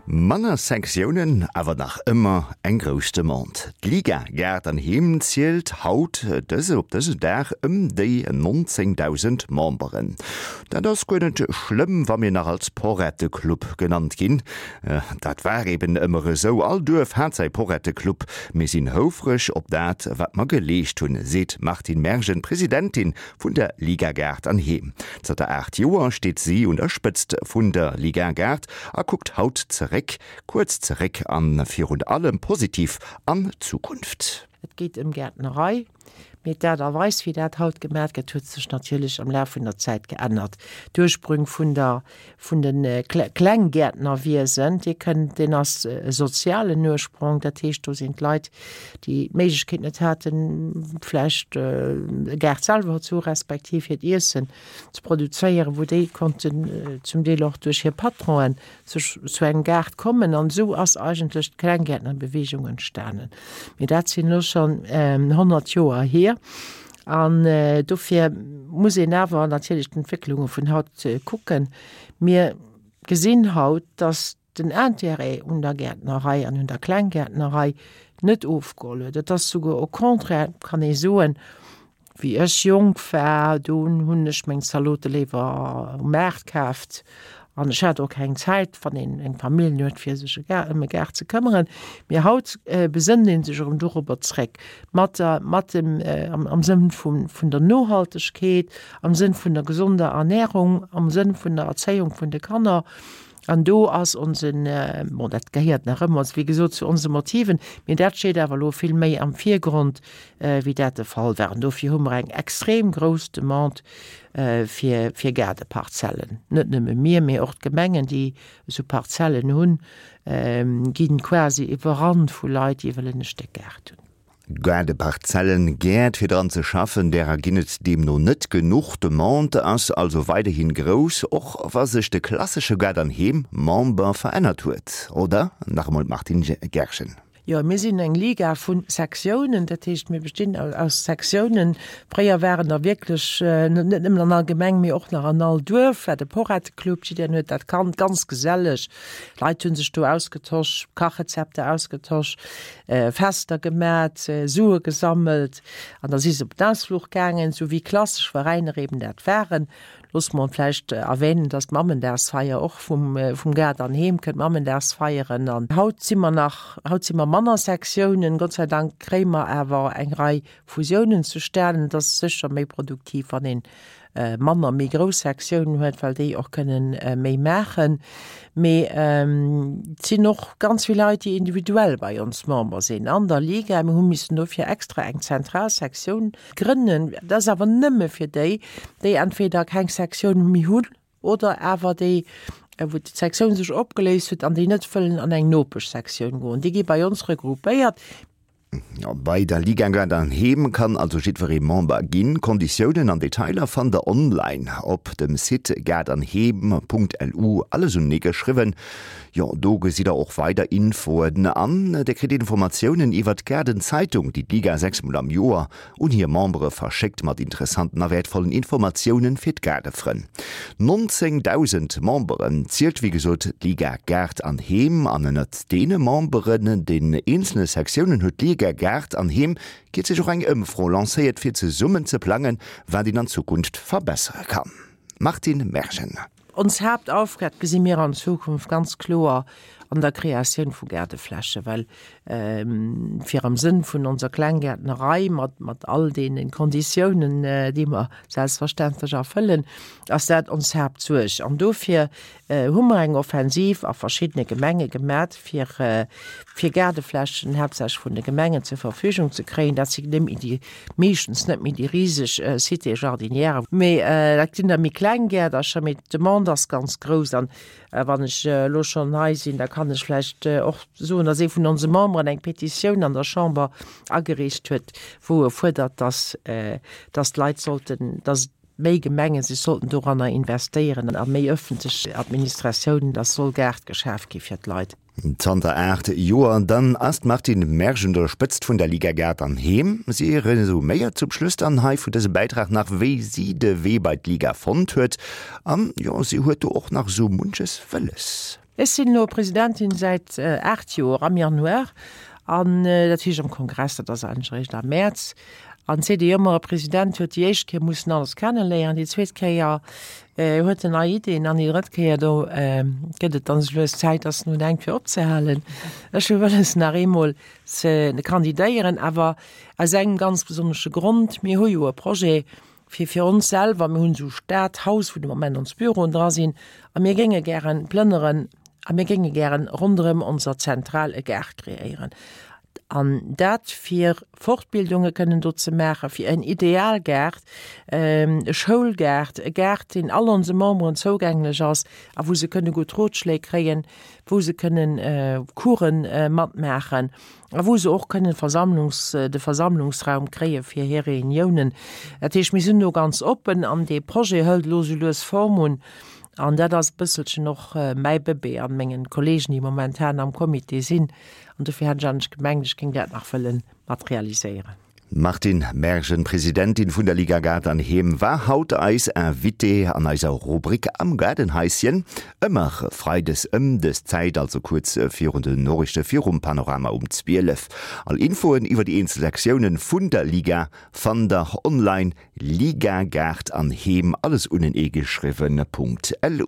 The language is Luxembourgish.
Manner Sektiounen, awer nach ëmmer eng grouss Demande. D'Liga Gaart an Heem zielt haut dëse op dëse Dag ëm déi 19.000 Memberen. Dat ass guer net schlëmm, wa mir nach als Porrette-Club genannt ginn. Dat war eben ëmmer esou, all Duerf hat säi Porrette-Club. Mir sinn houfreg op dat, wat mer geleescht hunn, seet d'Martine Mergen, Presidentin vun der Liga Gaart an Heem. Zanter 8 Joer steet si un der Spëtzt vun der Liga Gaart a kuckt haut zeréck, kuerz zeréck an virun allem positiv an d'Zukunft. Et geet ëm Gäertnerei, mee d'Aart a Weis, wéi dat haut gemat gëtt, huet sech natierlech am Laf vun der Zäit geännert. D'Ursprünng vun der, vun de Klenggäertnerwiesen, dee kënnt, deen ass e sozialen Ursprong, dat heescht, do sinn d'Leit, déi d'Méiglechkeet net haten, vläicht e Gaart selwer ze hu respektiv hiert Iessen ze produzéieren, wou déi konnten zum Deel och duerch hir Patronen sech zu engem Gaart kommen. An esou ass eigentlech d'Klenggäertnerbewegung entstanen. Mee dat sinn elo schonn 100 Joer hier. An dofir muss een awer natierlech d'Entwécklunge vun haut kucken. Mir gesinn haut, dass den Intérêt un der Gäertnerei an un der Klenggäertnerei net ofgeholl huet. Et ass souguer au contraire, kann ee soen, wéi ech jonk war, do hunn ech meng Zalote léiwer um Maart kaaft an ech hat och keng Zäit, wann een eng Famill huet, fir sech ëm e Gaart ze këmmeren. Mee haut besënnt ee sech erëm dorobber zréck, mat der, mat dem, am Sënn vun der Nohaltegkeet, am Sënn vun der gesonder Ernährung, am Sënn vun der Erzéiung vun de Kanner. An do ass onsen, bon, dat gehéiert nach ëmmer, wéi gesot, zu onse Motiven, mee dat steet awer elo vill méi am Virgrond, wéi dat de Fall war. An dofir hu mer eng extrem grouss Demande fir, fir Gaardeparzellen. Net nëmme mir, mee och d'Gemengen, déi esou Parzellen hunn, gi quasi iwwerrannt vu Leit, déi wëllen e Stéck Gaart hunn. Gaardeparzellen, Gäert fir dran ze schaffen, därer ginn et deemno net genuch. D'Demande ass also weiderhin grouss, och wa sech de klassesche Gaart an Heem Member verännert huet, oder? Nach emol d'Martine Gerschen. Jo, mir sinn eng Liga vu Sektiounen, dat heescht mir bestinn aus Sektiounen. Fréier waren der wierklech net nëmmen an all Gemeng, mee och nach an all Duerf war de Porretteclub, jiddereen huet dat kannt, ganz geselleg. D'Leit hu sech do ausgetosch, Kachrezepter ausgetosch. Fester gemat, Sue gesammelt an da si se op den Ausfluch gaangen, sou wéi klassesch Veräiner eben dat waren. Loosse mer vläicht erwänen, dass d'Mammendagsfeier och vum vum Gaart an Heem kënnt, Mammendagsfeieren. An haut si mer nach, haut si mer manner Sektiounen, Gott sei Dank kréie mer awer eng Rei Fusiounen zustanen. Et ass sécher méi produktiv, wann een manner méi grouss Sektiounen huet, well déi och kënnen méi maachen. Mee et sinn och ganz vill Leit, déi individuell bei ons Member sinn an der Liga. Mir hu missen dofir extra eng zentral Sektioun grënnen. Dat ass awer nëmme fir déi, déi entweder keng Sektioun méi hunn oder awer déi, wou d'Sektioun sech opgeléist huet an déi net wëllen an eng Nopeschsektioun goen. Déi gi bei ons regroupéiert. Bei der Liga Gaart an Heem kann also jiddweree Member ginn. Konditiounen an Detailer fannt der online op dem Site gaartanheem.lu, alles unenee geschriwwen. Jo, do gesitt der och weider Infoen an der kritt Informatiounen iwwert d'Gaardenzeitung, déi d'Liga 6 mol am Joer un hir Membere verschéckt mat interessanten a wäertvollen Informatiounen fir d'Gaardefrënn. 19.000 Memberen zielt wéi gesot d'Liga Gaart an Heem an ënnert deene Memberen, den eenzele Sektiounen huet d'Liga Gaart an Heem kierzlech och eng Ëmfro lancéiert fir zesummen ze plangen, wat een an Zukunft verbessere kann. Martine Mergen. Ons Haaptaufgab gesi mir an Zukunft ganz kloer an der Kreatioun vu Gaardeflächen, well fir am Sënn vun onser Klenggäertnerei mat mat all deene Konditiounen, déi mer selbstverständlech erfëllen, ass dat ons Haaptsuerg. An dofir hu mer eng Offensiv a verschiddene Gemenge gemat, fir fir Gaardeflächen haaptsächlech vun de Gemengen zur Verfügung ze kréien. Dat si net méi déi, meeschtens net méi déi riseg Cités jardinières, mee dat sinn da méi kleng Gäerdercher, mee d'Demande ass ganz grouss. An wann ech elo schonn hei sinn, da kann ech vläicht och soen, dass ee vun onse Memberen eng Petitioun an der Chamber agereecht huet, wou e fuerdert, dass dass d'Leit sollten, dass méi Gemenge sech sollten doranner investéieren a méi ëffentlech Administratiounen, dass soll Gaart geschaf gi fir d'Leit. Zanter 8 Joer dann ass d'Martine Mersch un der Spëtzt vun der Liga Gaart an Heem. Si resuméiert zum Schluss dann hei vun dësem Bäitrag nach, wéi si de Wee bei d'Liga fonnt huet. An jo, si huet do och nach esou munches wëlles. Ech sinn elo Presidentin säit 8 Joer am Januar an dat heescht am Kongress, dat ass eigentlech eréischt am Mäerz. An seet ee jo ëmmer, e President huet déi éischt Kéier mussen alles kenneléieren, déi zweet Kéier huet en nei Iddien an déi drëtt Kéier do gëtt et dann esou lues Zäit, dass en un denkt fir opzehalen. Ech hu wëlles nach eemol ze kandidéieren, awer aus engem ganz besonnesche Grond, Mir hu jo e Projet fir fir ons selwer, mir hunn esou Stadhaus, wou de Moment ons Büroen dra sinn, a mir géinge gären plënneren a mir géinge gären ronderëm onser Zentral e Gaart kreéieren. An dat fir Fortbildunge kënnen do ze maachen, fir en Idealgaart, e Schoulgaart, e Gaart, deen all onse Memberen zougänglech ass a wou se kënne gutt Rotschléi kréien, wou se kënnen Coursen matmaachen a wou se och kënnen Versammlungs, de Versammlungsraum kréie fir hir Reuniounen. Dat heescht, mir sinn do ganz oppen an dee Projet hëlt elo sou lues Form un an dat ass e bësselchen och mäi Bëbee an mengen Kollegen, déi momentan am Comité sinn. An dofir hat ech eigentlech gemengt, ech géing dat nach wëlle mat realiséieren. D'Martine Mergen, Presidentin vun der Liga Gaart an Heem, war haut eis Invitée an eiser Rubrik Am Gaardenhaischen. Ëmmer freides ëm dës Zäit, also kuerz virun den Noriichte virum Panorama um 12. All Infoen iwwer déi eenzel Sektiounen vun der Liga fannt der online ligagaartanheem, alles uneneegeschriwwen, .lu.